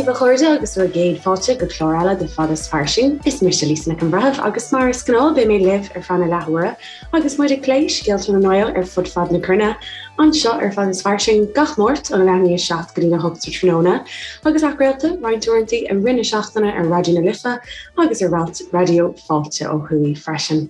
daoibh a chairde agus bhur gcéad fáilte go clár eile de Fada is Fairsing. Is mise Lisa Nic an Bhreithimh agus mar is gnáth beidh mé libh ar feadh na leathuaire agus muid ag plé scéalta na nGael ar fud fad na cruinne anseo ar Fada is Fairsing gach Máirt óna leath i ndiaidh 7 go dtí a 8 sa tráthnóna agus athchraolta roinnt uaireanta i rith na seachtaine ar Raidió na Life agus ar Raidió Fáilte ó thuaidh freisin.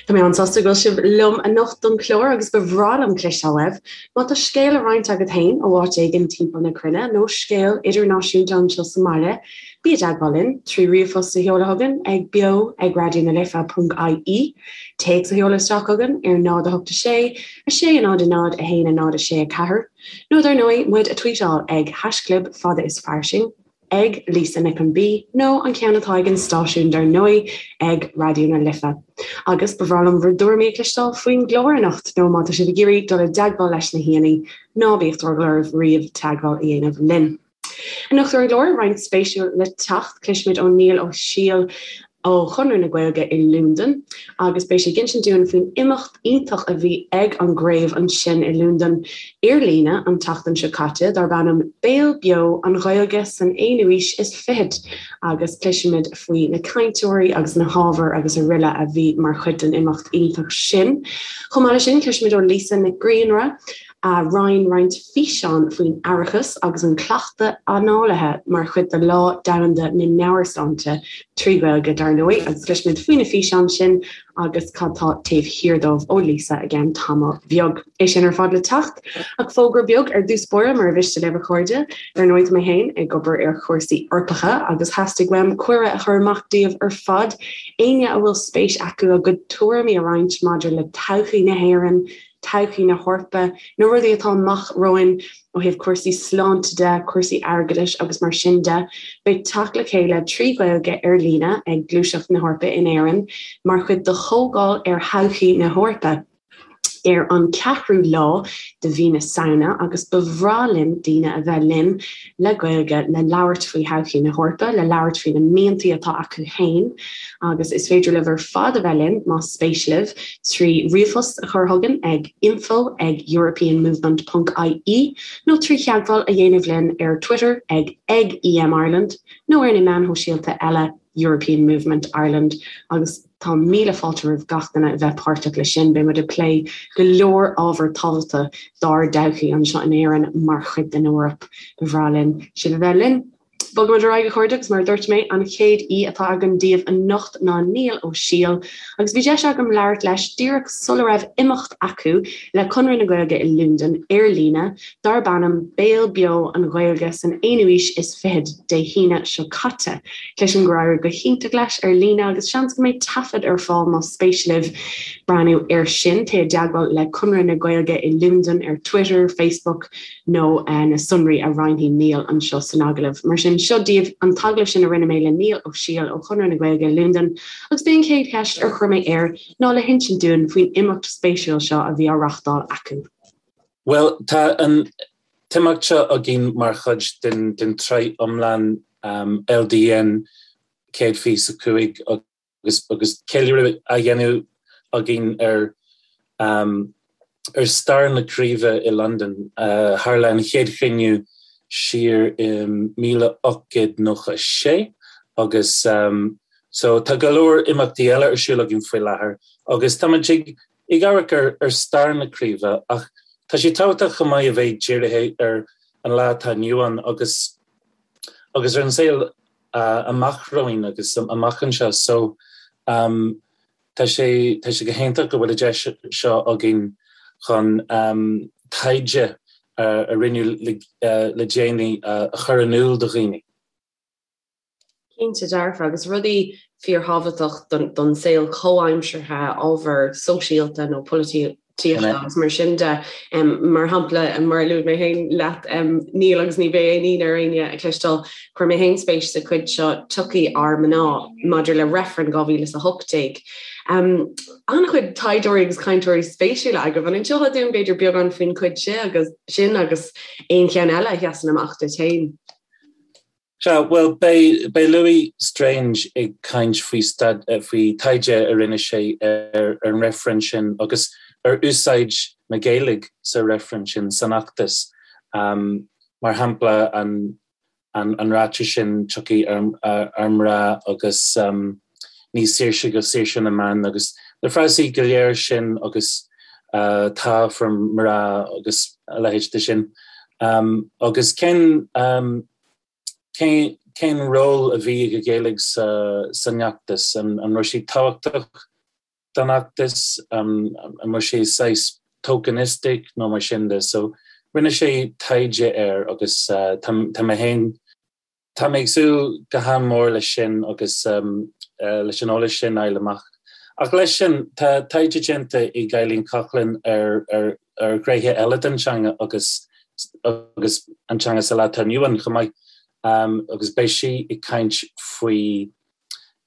Tá mé an-sásta go bhfuil sibh liom anocht don chlár agus ba bhreá liom cloisteáil uaibh. Má tá scéal le roinnt agat féin ó áit éigin timpeall na cruinne nó scéal idirnáisiúnta anseo sa mbaile, bí i dteagmháil linn trí ríomhphost a sheoladh chugainn ag beo ag raidionalife.ie, téacs a sheoladh isteach chugainn ar 0 8 6 6 0 0 1 0 6 4, nó dar ndóigh muid a tweetáil ag haischlib fada is fairsing. ag Lisa Nic an B nó an ceann atá ag an stáisiún dar ndóigh ag Raidió na Life. Agus ba bhreá liom bhur dtuairimí a chloisteáil faoin gclár anocht nó má tá sibh ag iarraidh dul i dteagmháil leis na haíonna, ná bíodh drogall oraibh riamh teagmháil a dhéanamh linn. Anocht ar an gclár, roinnt spéisiúil le teacht, cloisfimid ó Niall Ó Siail ó Chonradh na Gaeilge i Londain agus beidh sé ag insint dúinn faoin imeacht iontach a bhí ag an gcraobh ansin i Londain ar líne an tseachtain seo caite darb ainm Béal Beo, An Ghaeilge san Aonú Aois is Fichead agus cloisfimid faoi na cainteoirí agus na hábhair agus araile a bhí mar chuid den imeacht iontach sin. Chomh maith leis sin cloisfimid ó Lisa Nic Grianra a roinn roinnt físeán faoin aireachas agus an cleachtadh análaithe mar chuid de Lá Domhanda na Meabhairshláinte, trí Ghaeilge dar ndóigh, agus cloisfimid faoi na físeáin sin agus cad tá taobh thiar dóibh ó Lisa i gceann tamall bheag. É sin ar fad le teacht, ach fógra beag ar dtús báire mar a mhiste libh a chairde. Dar ndóigh tá mé féin ag obair ar chúrsaí Eorpacha agus theastaigh uaim cuireadh a chur amach daoibh ar fad, éinne a bhfuil spéis acu a gcuid tuairimí a roinnt maidir le todhchaí na hÉireann, todhchaí na hEorpa, na rudaí atá amach romhainn ó thaobh cúrsaí sláinte de, cúrsaí airgeadais agus mar sin de. Beidh teacht le chéile trí Ghaeilge ar líne ag Gluaiseacht na hEorpa in Éirinn mar chuid de Chomhdháil ar Thodhchaí na hEorpa ar an 4ú lá de mhí na Samhna agus ba bhreá linn daoine a bheith linn le Gaeilge le labhairt faoi thodhchaí na hEorpa, le labhairt faoi na miantaí atá acu féin agus is féidir libh ar fad a bheith linn más spéis libh trí ríomhphost a chur chugainn ag info ag europeanmovement ponc ie nó trí theagmháil a dhéanamh linn ar Twitter ag ag EMIreland nó ar na meáin shóisialta eile European Movement Ireland agus Tá míle fáilte roimh gach duine a bheith páirteach leis sin. Beidh muid ag plé go leor ábhar tábhachtach dár dtodhchaí anseo in Éirinn mar chuid den Eoraip. Ba bhreá linn sibh a bheith linn. Bogfaimid ar aghaidh a chairde agus mar a dúirt mé, an chéad aoi atá againn daoibh anocht ná Niall Ó Siail agus bhí deis agam labhairt leis díreach sula raibh imeacht acu le Conradh na Gaeilge i Londain ar líne darb ainm Béal Beo an Ghaeilge san Aonú Aois is Fichead Dé hAoine seo caite. Cloisim gur éirigh go hiontach leis ar líne agus seans go mbeidh taifead ar fáil más spéis libh breathnú air sin. Téigh i dteagmháil le Conradh na Gaeilge i Londain ar Twitter, Facebook nó na sonraí a roinnfidh Niall anseo san agallamh. Mar sin, seo daoibh an t-agallamh sin a rinne mé le Niall Ó Siail ó Chonradh na Gaeilge i Londain agus b'é an chéad cheist ar chuir mé air ná le hinsint dúinn faoin imeacht spéisiúil seo a bhí á reachtáil acu. Bhuel, tá an t-imeacht seo againn mar chuid den tsraith iomlán LDN 125 agus ceiliúradh á dhéanamh againn ar ar stair na craoibhe i Londain. Tharla an chéad chruinniú siar i 1896 agus so tá go leor imeachtaí eile ar siúl againn faoi láthair agus táimid ag ag amharc ar stair na craoibhe ach tá sé tábhachtach chomh maith a bheith dírithe ar an lá atá inniu ann agus agus ar an saol amach romhainn agus amach anseo. So tá sé tá sé go hiontach go bhfuil an deis seo againn chun taighde a rinneadh le déanaí a chur in iúl do dhaoine. Cinnte dearfa, agus rudaí fíorthábhachtach don saol comhaimseartha, ábhar sóisialta nó polaitíochta agus mar sin de. Mar shampla, mar a luaigh mé féin leat, Niall, agus ní bheidh aon ionadh ar éinne a chloisteáil, chuir mé féin spéis sa chuid seo Tiocfaidh ár mná maidir le reifreann 2018. An-chuid taighdeoirí agus cainteoirí spéisiúla agaibh. An inseofá dúinn b'fhéidir beagán faoin chuid sin agus aon cheann eile a sheasann amach duit féin? Sea, bhuel, beidh, beidh Louis Strange ag caint faoi staid, faoi taighde a rinne sé ar an reifreann sin agus ar úsáid na Gaeilge sa reifreann sin, san fheachtas. Mar shampla, an. An ráiteas sin tiocfaidh ár mná agus ní saoirse go saoirse na mban agus na frásaí go léir sin agus tá for mná agus a leithéid de sin. Agus cén cén ról a bhí ag an Ghaeilge san fheachtas? An raibh sé tábhachtach don fheachtas, an raibh sé saghas tokenistic nó mar sin de. So rinne sé taighde air agus tá mé féin, tá mé ag súil go han-mhór leis sin agus leis an eolas sin a fháil amach. Ach leis sin, tá taighde déanta ag Eileen Coughlan ar ar ar ghnéithe eile den teanga agus agus an teanga sa lá atá inniu ann chomh maith agus beidh sí ag caint faoi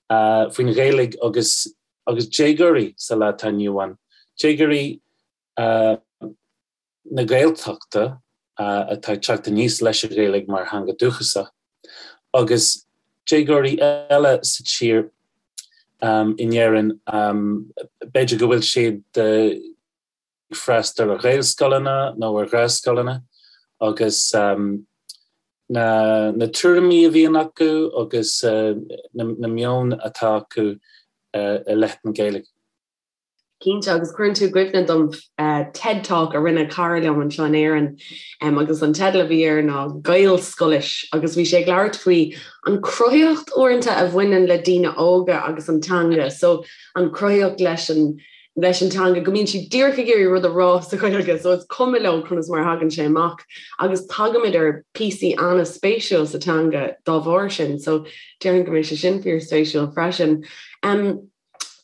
faoin Ghaeilge agus agus déagóirí sa lá atá inniu ann, déagóirí na Gaeltachta atá ag teacht aníos leis an Ghaeilge mar theanga dúchasach agus déagóirí eile sa tír in Éirinn, b'fhéidir go bhfuil siad ag freastal ar Ghaelscoileanna nó ar Ghaelscoileanna agus na na tuairimí a bhíonn acu agus na meon atá acu i leith na Gaeilge. Cinnte, agus cuireann tú i gcuimhne dom TED Talk a rinne cara liom anseo in Éirinn agus an teideal a bhí air ná Gaelscoilis agus bhí sé ag labhairt faoi an cruthaitheacht uaireanta a bhaineann le daoine óga agus an teanga, so an cruthaitheacht leis an leis an teanga, go mbíonn siad díreach ag iarraidh rud a rá sa Ghaeilge, so is cuma leo conas mar a thagann sé amach agus tagaimid ar píosaí an-spéisiúil sa teanga dá bharr sin, so déarfainn go mbeidh sé sin fíorspéisiúil freisin. Um,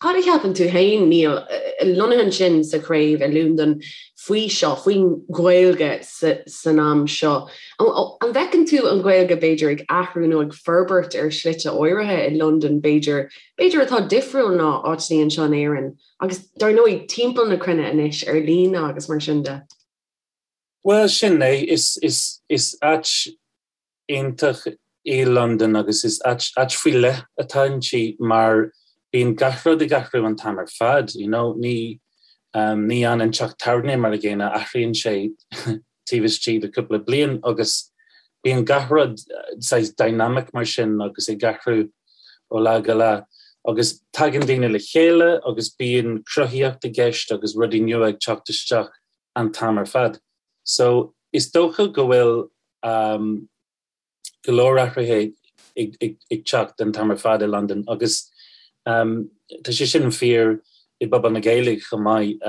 cad a cheapann tú féin, Niall, lonnaithe ansin sa chraobh i Londain faoi seo, faoin Ghaeilge san am seo? An bhfeiceann tú an Ghaeilge b'fhéidir ag athrú nó ag forbairt ar shlite áirithe i Londain b'fhéidir b'fhéidir atá difriúil ná áiteanna anseo in Éirinn agus dar ndóigh timpeall na cruinne anois ar líne agus mar sin de. Bhuel, sin é, is, is, is áit iontach í Londain agus is áit, áit faoi leith atá inti mar bíonn gach rud ag athrú an t-am ar fad, you know, ní, ní fhanann teach tábhairne mar a gcéanna, athraíonn sé taobh istigh de cúpla bliain agus bíonn gach rud saghas dynamic mar sin agus ag athrú ó lá go lá agus tagann daoine le chéile agus bíonn cruthaíocht i gceist agus rudaí nua ag teacht isteach an t-am ar fad. So is dócha go bhfuil um, go leor athruithe ag teacht an t-am ar fad i Londain agus tá sé sin fíor i bpobal na Gaeilge chomh maith.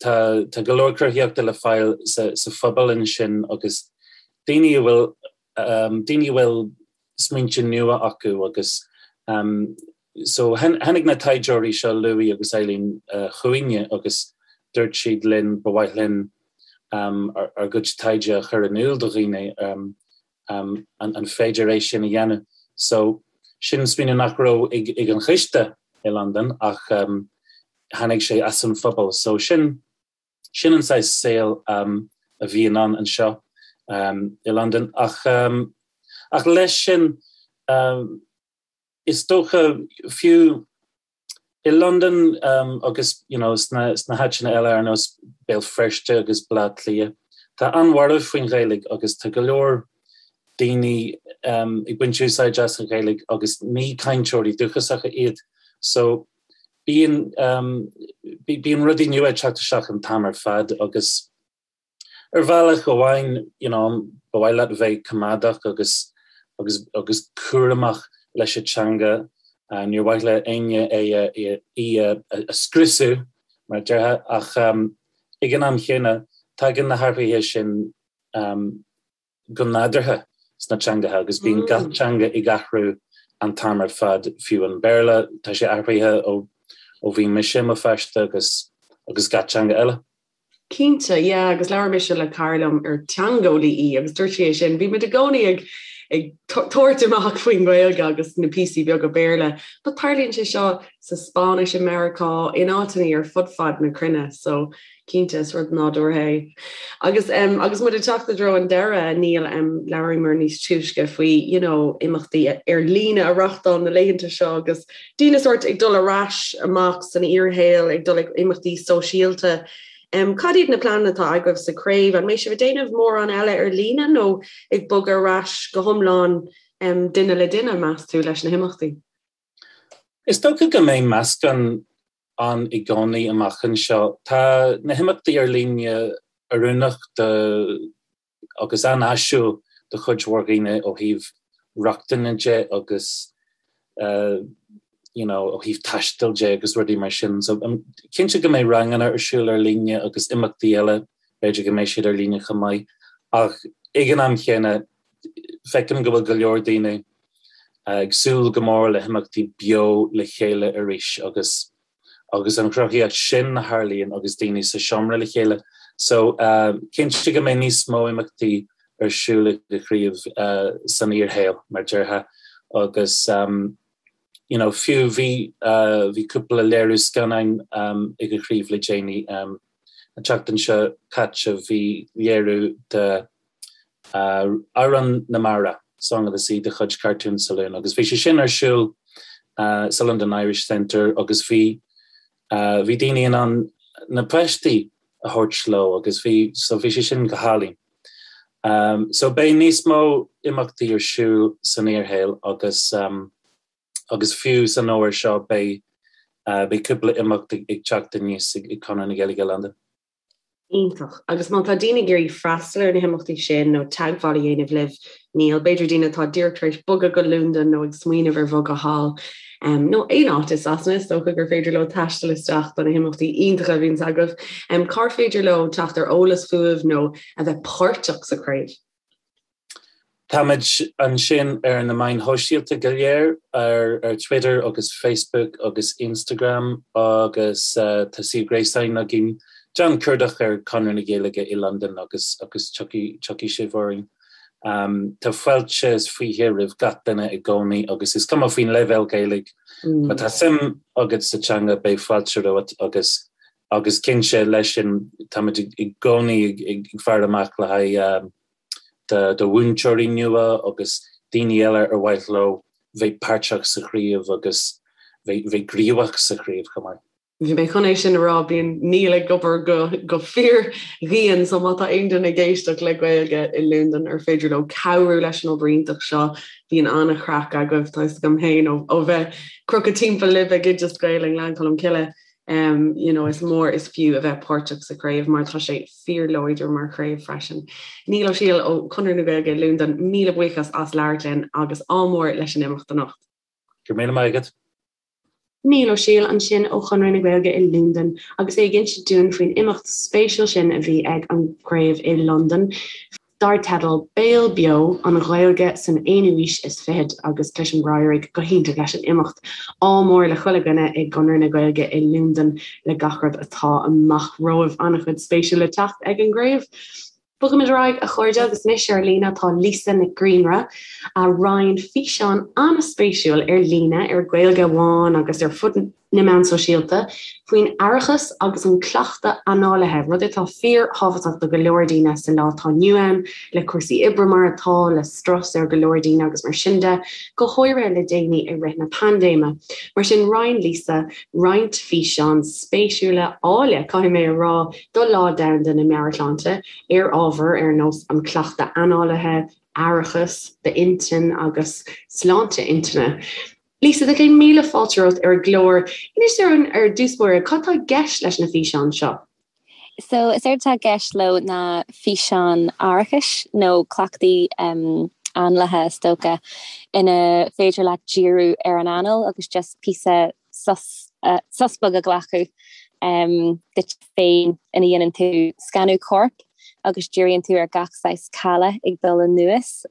Tá tá go leor cruthaíochta le fáil sa sa phobal ansin agus daoine a bhfuil daoine a bhfuil smaointe nua acu agus so tháinig na taighdeoirí seo Louis agus Eileen chugainne agus dúirt siad linn ba mhaith linn ár gcuid taighde a chur in iúl do dhaoine, an féidir é sin a dhéanamh? So sin smaoineamh nach raibh ag an choiste i Londain ach tháinig sé as an phobal. So sin sin an saghas saol a bhíonn ann anseo i Londain. Ach ach leis sin is dócha fiú I Londain agus you know sna sna háiteanna eile ar nós Béal Feirste agus Baile Átha Cliath, tá an-bhorradh faoin Ghaeilge agus tá go leor daoine ag baint úsáid as an Ghaeilge agus ní cainteoirí dúchasacha iad. So bíonn bíonn rudaí nua ag teacht isteach an t-am ar fad agus Ar bhealach amháin, you know, ba mhaith leat a bheith coimeádach agus agus agus cúramach leis an teanga. Níor mhaith le éinne é a í a a scriosadh, mar a déarfá, ach ag an am chéanna, tagann na hathruithe sin go nádúrtha sna teangacha agus bíonn gach teanga ag athrú an t-am ar fad, fiú an Béarla, tá sé athraithe ó ó bhí mise i mo pháiste agus agus gach teanga eile. Cinnte, yeah, agus labhair mise le cara liom ar teangeolaí í agus dúirt sí é sin, bhí muid i gcónaí ag ag tabhairt amach faoin nGaeilge agus na píosaí beaga Béarla, but tarlaíonn sé seo sa Spáinnis i Meiriceá, in áiteanna ar fud fad na cruinne, so cinnte is rud nádúrtha é. Agus um, agus muid ag teacht i dtreo an deireadh, Niall, um, labhraíomar níos túisce faoi you know, imeachtaí ar líne a reáchtáil na laethanta seo agus daoine sórt ag dul ar ais amach san fhíorshaol, ag dul ag imeachtaí sóisialta. Cad iad na pleananna atá agaibh sa chraobh? An mbeidh sibh ag déanamh mórán eile ar líne nó ag bogadh ar ais go hiomlán duine le duine, meas tú, leis na himeachtaí? Is dócha go mbeidh meascán ann i gcónaí amach anseo. Tá na himeachtaí ar líne oiriúnach do agus an-áisiúil do chuid mhór dhaoine ó thaobh rochtana de agus you know ó thaobh taistil de agus rudaí mar sin. So cinnte go mbeidh ranganna ar siúl ar líne agus imeachtaí eile, b'fhéidir go mbeidh siad ar líne chomh maith. Ach ag an am chéanna feicim go bhfuil go leor daoine ag súil go mór le himeachtaí beo le chéile arís agus agus an chruthaíocht sin a tharlaíonn agus daoine sa seomra le chéile. So cinnte go mbeidh níos mó imeachtaí ar siúl ag an chraobh san fhíorshaol, mar déarfá, agus you know fiú bhí bhí cúpla léiriú scannáin ag an chraobh le déanaí. An tseachtain seo caite bhí léiriú de Amhrán na Mara, Song of the Sea de chuid Cartoon Saloon agus bhí sé sin ar siúl sa London Irish Centre agus bhí bhí daoine in ann na páistí a thabhairt leo agus bhí so bhí sé sin go hálainn. So beidh níos mó imeachtaí ar siúl san fhíorshaol agus agus fiú san fhómhar seo beidh beidh cúpla imeacht ag teacht aníos ag Conradh na Gaeilge i Londain. Iontach. Agus má tá daoine ag iarraidh freastal ar na himeachtaí sin nó teagmháil a dhéanamh libh, Niall, b'fhéidir daoine atá díreach tar éis bogadh go Londain nó ag smaoineamh ar bhogadh thall, nó aon áit i Sasana, is dócha gur féidir leo taisteal isteach do na himeachtaí iontacha a bhíonns agaibh. Cár féidir leo teacht ar eolas fúibh nó a bheith páirteach sa chraobh? Táimid ansin ar na meáin shóisialta go léir, ar Twitter agus Facebook agus Instagram agus tá suíomh gréasáin againn. Déan cuardach ar Conradh na Gaeilge i Londain agus agus tiocfaidh tiocfaidh sibh orainn. Tá fáilte is fiche roimh gach duine i gcónaí agus is cuma faoin leibhéal Gaeilge, má tá suim agat sa teanga beidh fáilte romhat agus agus cinnte leis sin táimid i gcónaí ag faire amach le haghaidh do mhúinteoirí nua agus daoine eile ar mhaith leo bheith páirteach sa chraobh agus bheith gníomhach sa chraobh chomh maith. Bhí mé chun é sin a rá, bíonn Niall ag obair go go fíordhian so má tá aon duine ag éisteacht le Gaeilge i Londain ar féidir leo cabhrú leis an obair iontach seo, bíonn an-chraic agaibh, tá fhios agam féin ó bheith crochadh timpeall libh ag Oideas Gael i nGleann Cholm Cille. You know, is mór is fiú a bheith páirteach sa chraobh mar tá sé fíorláidir mar chraobh freisin. Niall Ó Siadhail ó Chonradh na Gaeilge i Londain, míle buíochas as labhairt linn agus ádh mór leis an imeacht anocht. Go raibh míle maith agat. Niall Ó Siadhail ansin ó Chonradh na Gaeilge i Londain agus é ag inse dúinn faoin imeacht spéisiúil sin a bhí ag an gcraobh i Londain. dar teideal Béal Beo, An Ghaeilge san Aonú Aois is Fichead agus cloisim gur éirigh go hiontach leis an imeacht. Ádh mór le chuile dhuine i gConradh na Gaeilge i Londain le gach rud atá amach romhaibh. An-chuid spéisiúil le teacht ag an gcraobh. Bogaimid ar aghaidh, a chairde, agus anois ar líne tá Lisa Nic Grianra, a roinn físeán an-spéisiúil ar líne ar Gaeilge Amháin agus ar fud na meán sóisialta, faoin aireachas agus an cleachtadh análaithe, rud atá fíorthábhachtach do go leor daoine sa lá atá inniu ann, le cúrsaí oibre mar atá, le strus ar go leor daoine agus mar sin de, go háirithe le déanaí i rith na paindéime. Mar sin, roinn Lisa roinnt físeán spéisiúla, áille, caithfidh mé a rá, do Lá Domhanda na Meabhairshláinte, ar ábhair ar nós an cleachtadh análaithe, aireachas d'intinn agus sláinte intinne. Lisa, tá céad míle fáilte romhat ar an gclár. Inis dúinn ar dtús báire, cad tá i gceist leis na físeáin seo? So, is éard atá i gceist leo ná físeáin aireachais nó cleachtaí análaithe is dócha, ina féidir leat díriú ar an anáil agus just píosa sos, sos beag a ghlacadh duit féin ina dhéanann tú scanadh coirp agus díríonn tú ar gach saghas calath ag dul anuas.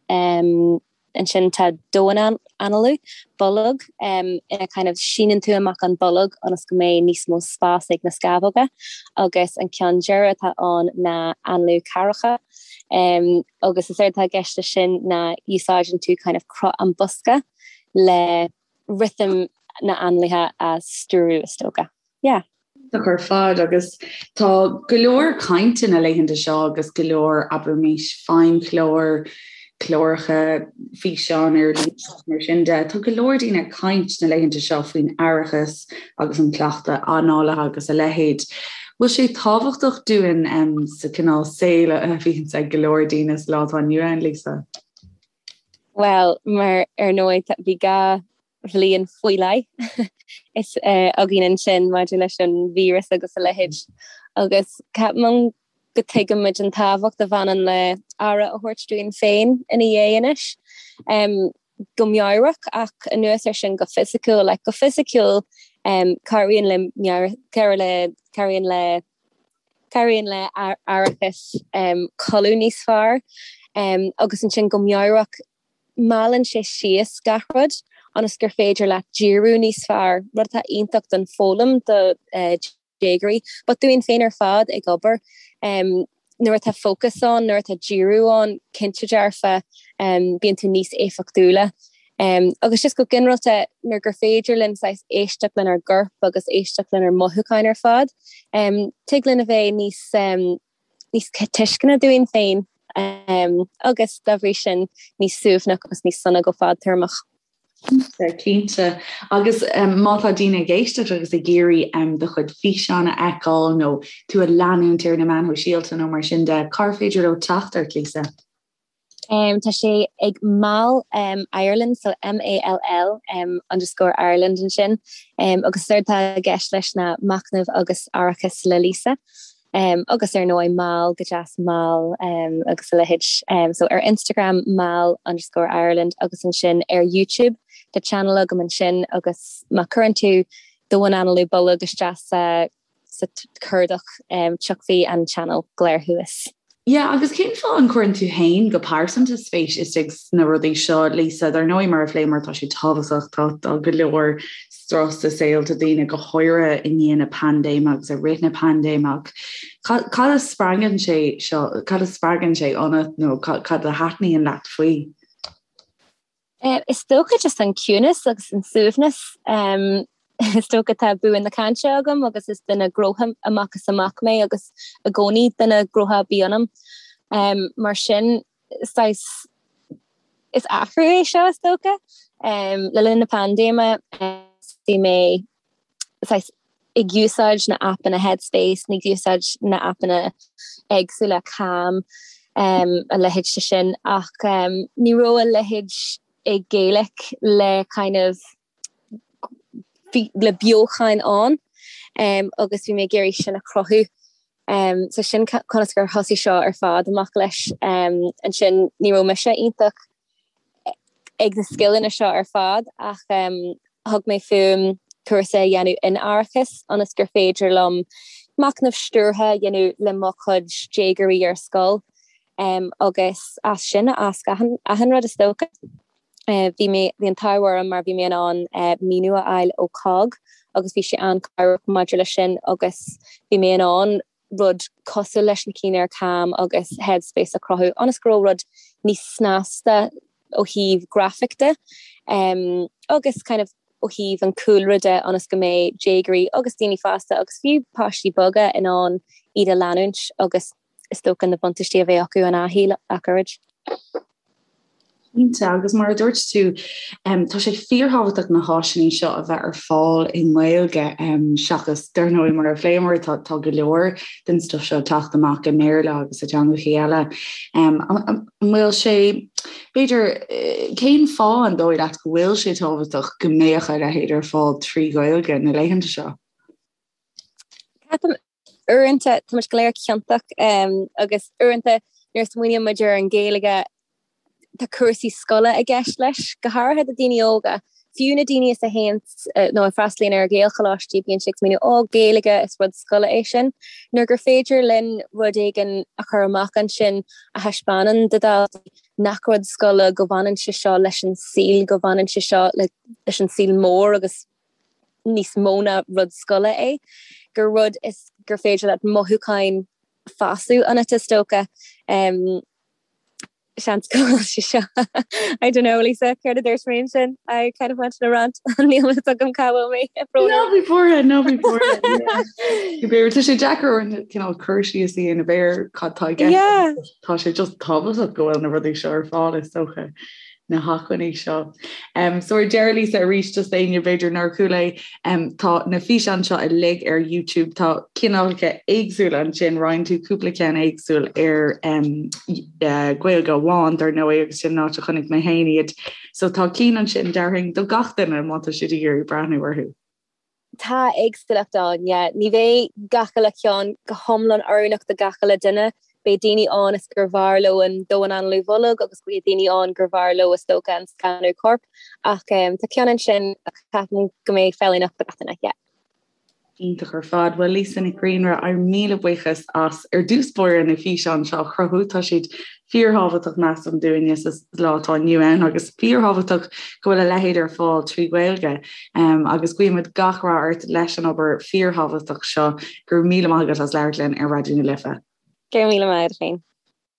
Ansin tá domhain-análú, bolg, ina kind of síneann tú amach an bolg ionas go mbeidh níos mó spás ag na scamhóga agus an ceann deireadh atá ann ná análú ceathracha agus is éard atá i gceist leis sin ná úsáideann tú kind of cruth an bosca le rithim na n-análaithe a stiúradh is dócha. Yeah. Iontach ar fad agus tá go leor cainte na laethanta seo agus go leor, abraimis, feidhmchláir, cláracha, físeáin ar líne agus mar sin de. Tá go leor daoine ag caint na laethanta seo faoin aireachas agus an cleachtadh análaithe agus a leithéid. Bhfuil sé tábhachtach dúinn sa cineál saol a bhíonns ag go leor daoine sa lá atá inniu ann, Lisa? Bhuel, mar ar ndóigh bhí gá bhliain faoi leith is againn ansin maidir leis an víreas agus a leithéid agus ceapaim go dtuigimid an tábhacht a bhaineann le aire a thabhairt dúinn féin ina dhiaidh anois. Go meabhrach ach anuas ar sin go fisiciúil, like go fisiciúil cabhraíonn le meabhair, cabhraíonn le cabhraíonn le aireachas codladh níos fearr agus ansin go meabhrach meallann sé síos gach rud ionas gur féidir leat díriú níos fearr, rud atá iontach don foghlaim do déagóirí, but dúinn féin ar fad ag obair. Nuair atá fócas ann, nuair atá díriú ann, cinnte dearfa, bíonn tú níos éifeachtúla. Agus just go ginearálta, nuair gur féidir linn saghas éisteacht lenár gcorp agus éisteacht lenár mothúcháin ar fad, tig linn a bheith níos níos tuisceana dúinn féin agus dá bhrí sin níos suaimhneach agus níos sona go fadtéarmach. Cinnte, cinnte. Agus má tá daoine ag éisteacht agus ag iarraidh do chuid físeán a fheiceáil nó tú a leanúint ar na meáin shóisialta nó mar sin de, cár féidir leo teacht ort, Lisa? Tá sé ag Mall Ireland, so M-A-L-L underscore Ireland ansin, agus is éard atá i gceist leis ná machnamh agus aireachas le Lisa. Agus ar ndóigh mall go deas mall agus a leithéid. So ar Instagram Mall underscore Ireland agus ansin ar YouTube tá channel agam ansin agus má chuireann tú domhainanálú bolg isteach sa sa chuardach tiocfaidh an channel go léir thuas. Yeah, agus cén fáth an gcuireann tú féin go pearsanta spéis istigh sna rudaí seo, Lisa? Dar ndóigh, mar a phléamar, tá sé tábhachtach, tá tá go leor strus i saolta daoine, go háirithe i ndiaidh na paindéime agus i rith na paindéime, ach cad cad a spreagann sé seo, cad a spreagann sé ionat nó cad a thaitníonn leat faoi? Is dócha just an ciúnas agus an suaimhneas. Is dócha tá bua na cainte agam agus is duine gnótha amach is amach mé agus i gcónaí duine gnótha a bhí ionam. Mar sin, saghas, is athrú é seo is dócha. Le linn na paindéime bhí mé saghas ag úsáid na aipeanna Headspace, ag úsáid na aipeanna éagsúla Calm, a leithéid de sin ach ní raibh a leithéid i Gaeilge le kind of le beochan ann agus bhí mé ag iarraidh sin a chruthú. So sin conas gur thosaigh seo ar fad amach leis. Ansin ní raibh mise iontach ag na scileanna seo ar fad ach thug mé fúm cúrsa a dhéanamh in aireachas ionas gur féidir liom machnamh stiúrtha a dhéanamh le mo chuid déagóirí ar scoil agus as sin a fhás achan rud is dócha. Bhí mé, bhí an t-ádh orm mar bhí mé in ann maoiniú a fháil ó cogg agus bhí sé an-chabhrach maidir leis sin agus bhí mé in ann rud cosúil leis na cinn ar Calm agus Headspace a chruthú ionas go raibh rud níos snasta ó thaobh grafaic de agus kind of ó thaobh an cúlra de ionas go mbeidh déagóirí agus daoine fásta agus fiú páistí beaga in ann iad a leanúint agus is dócha na buntáistí a bheith acu an athuair ach oiread. Cinnte, agus mar a dúirt tú, tá sé fíorthábhachtach na háiseanna seo a bheith ar fáil i nGaeilge seachas, dar ndóigh, mar a phléamar, tá go leor den stuif seo ag teacht amach i mBéarla agus i dteangacha eile. An bhfuil sé, b'fhéidir, cén fáth an dóigh leat go bhfuil sé tábhachtach go mbeadh a leithéid ar fáil trí Ghaeilge na laethanta seo? Ceapaim uaireanta tá muid go léir ciontach agus uaireanta nuair a smaoiníonn muid ar an Ghaeilge tá cúrsaí scoile i gceist leis, go háirithe do daoine óga. Fiú na daoine is a théann nó a freastalaíonn ar Ghaelcholáistí bíonn siad ag smaoineamh ó Gaeilge is rud scoile é sin. Nuair gur féidir linn rud éigin a chur amach ansin a thaispeánann do dhaltaí nach rud scoile go bhaineann sé seo leis an saol, go bhaineann sé seo leis an saol mór agus níos mó ná rud scoile é, gur rud is gur féidir leat mothúcháin fásadh ionat is dócha. Seans go bhfuil sé seo I don't know Lisa, céard a dúirt mé ansin? I kind of went on a rant níl a fhios agam cá bhfuil mé Ná bí buartha, ná bí buartha. Tá sé deacair orainn cineál cur síos a dhéanamh ar cad tá i gceist. Tá sé just tábhachtach go bhfuil na rudaí seo ar fáil is dócha. na hacmhainní seo. So ar deireadh Lisa arís just d'éinne b'fhéidir nár chuala é, tá na físeáin seo uilig ar YouTube, tá cineálacha éagsúla ansin, roinn tú cúpla ceann éagsúil ar Gaeilge amháin dar ndóigh agus sin an áit a chonaic mé féin iad. So tá cinn ansin déarfainn do gach duine má tá siad ag iarraidh breathnú orthu. Tá éagsúlacht ann, yeah. Ní bheidh gach uile cheann go hiomlán oiriúnach do gach uile duine. Beidh daoine ann is gur bhfearr leo an domhainanálú bholg agus beidh daoine ann gur bhfearr leo is dócha an scanadh coirp. Ach tá ceann ansin a cheapaim go mbeidh feiliúnach do gach duine, yeah. Iontach ar fad. Bhuel Lisa Nic Grianra, ár míle buíochas as ar dtús báire na físeáin seo a chruthú. Tá siad fíorthábhachtach measaim dúinne sa lá atá inniu ann agus fíorthábhachtach go bhfuil a leithéid ar fáil trí Ghaeilge. Agus guímid gach rath ort leis an obair fíorthábhachtach seo. Go raibh míle maith agat as labhairt linn ar Raidió na Life. Go raibh míle maith agat féin.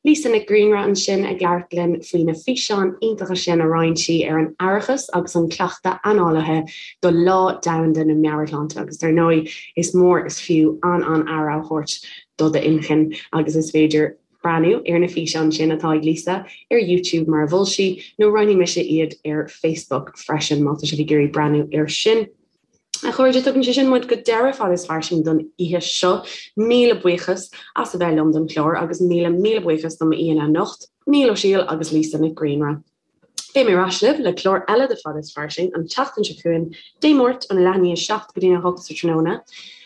Lisa Nic Grianra ansin ag labhairt linn faoi na físeáin iontacha sin a roinn sí ar an aireachas agus an cleachtadh análaithe do Lá Domhanda na Meabhairshláinte agus dar ndóigh is mór is fiú an-an-aire a thabhairt do d'inchinn agus is féidir breathnú ar na físeáin sin atá ag Lisa ar YouTube mar a mhol sí nó roinnfidh mise iad ar Facebook freisin má tá sibh ag iarraidh breathnú air sin. A chairde, tugann sé sin muid go deireadh Fada is Fairsing don oíche seo. Míle buíochas as a bheith liom don chlár agus míle míle buíochas do m'aíonna anocht, Niall Ó Siadhail agus Lisa Nic Grianra. Beidh mé ar ais libh le clár eile de Fada is Fairsing an tseachtain seo chugainn, Dé Máirt óna leath i ndiaidh a 7 go dtí a 8 sa tráthnóna.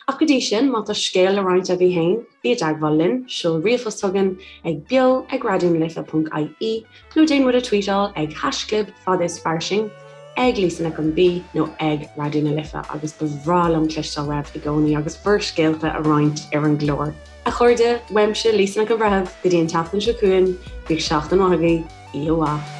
Ach go dtí sin, má tá scéal le roinnt agaibh féin, bí i dteagmháil linn, seol ríomhphost chugainn ag beo ag raidionalife.ie nó déan muid a tweetáil ag haischlib fada is fairsing, ag Lisa Nic an B nó ag Raidió na Life agus ba bhreá liom cloisteáil uaibh i gcónaí agus bhur scéalta a roinnt ar an gclár. A chairde, uaimse Lisa Nic an Bhreithimh, go dtí an tseachtain seo chugainn, bíodh seachtain mhaith agaibh, oíche mhaith.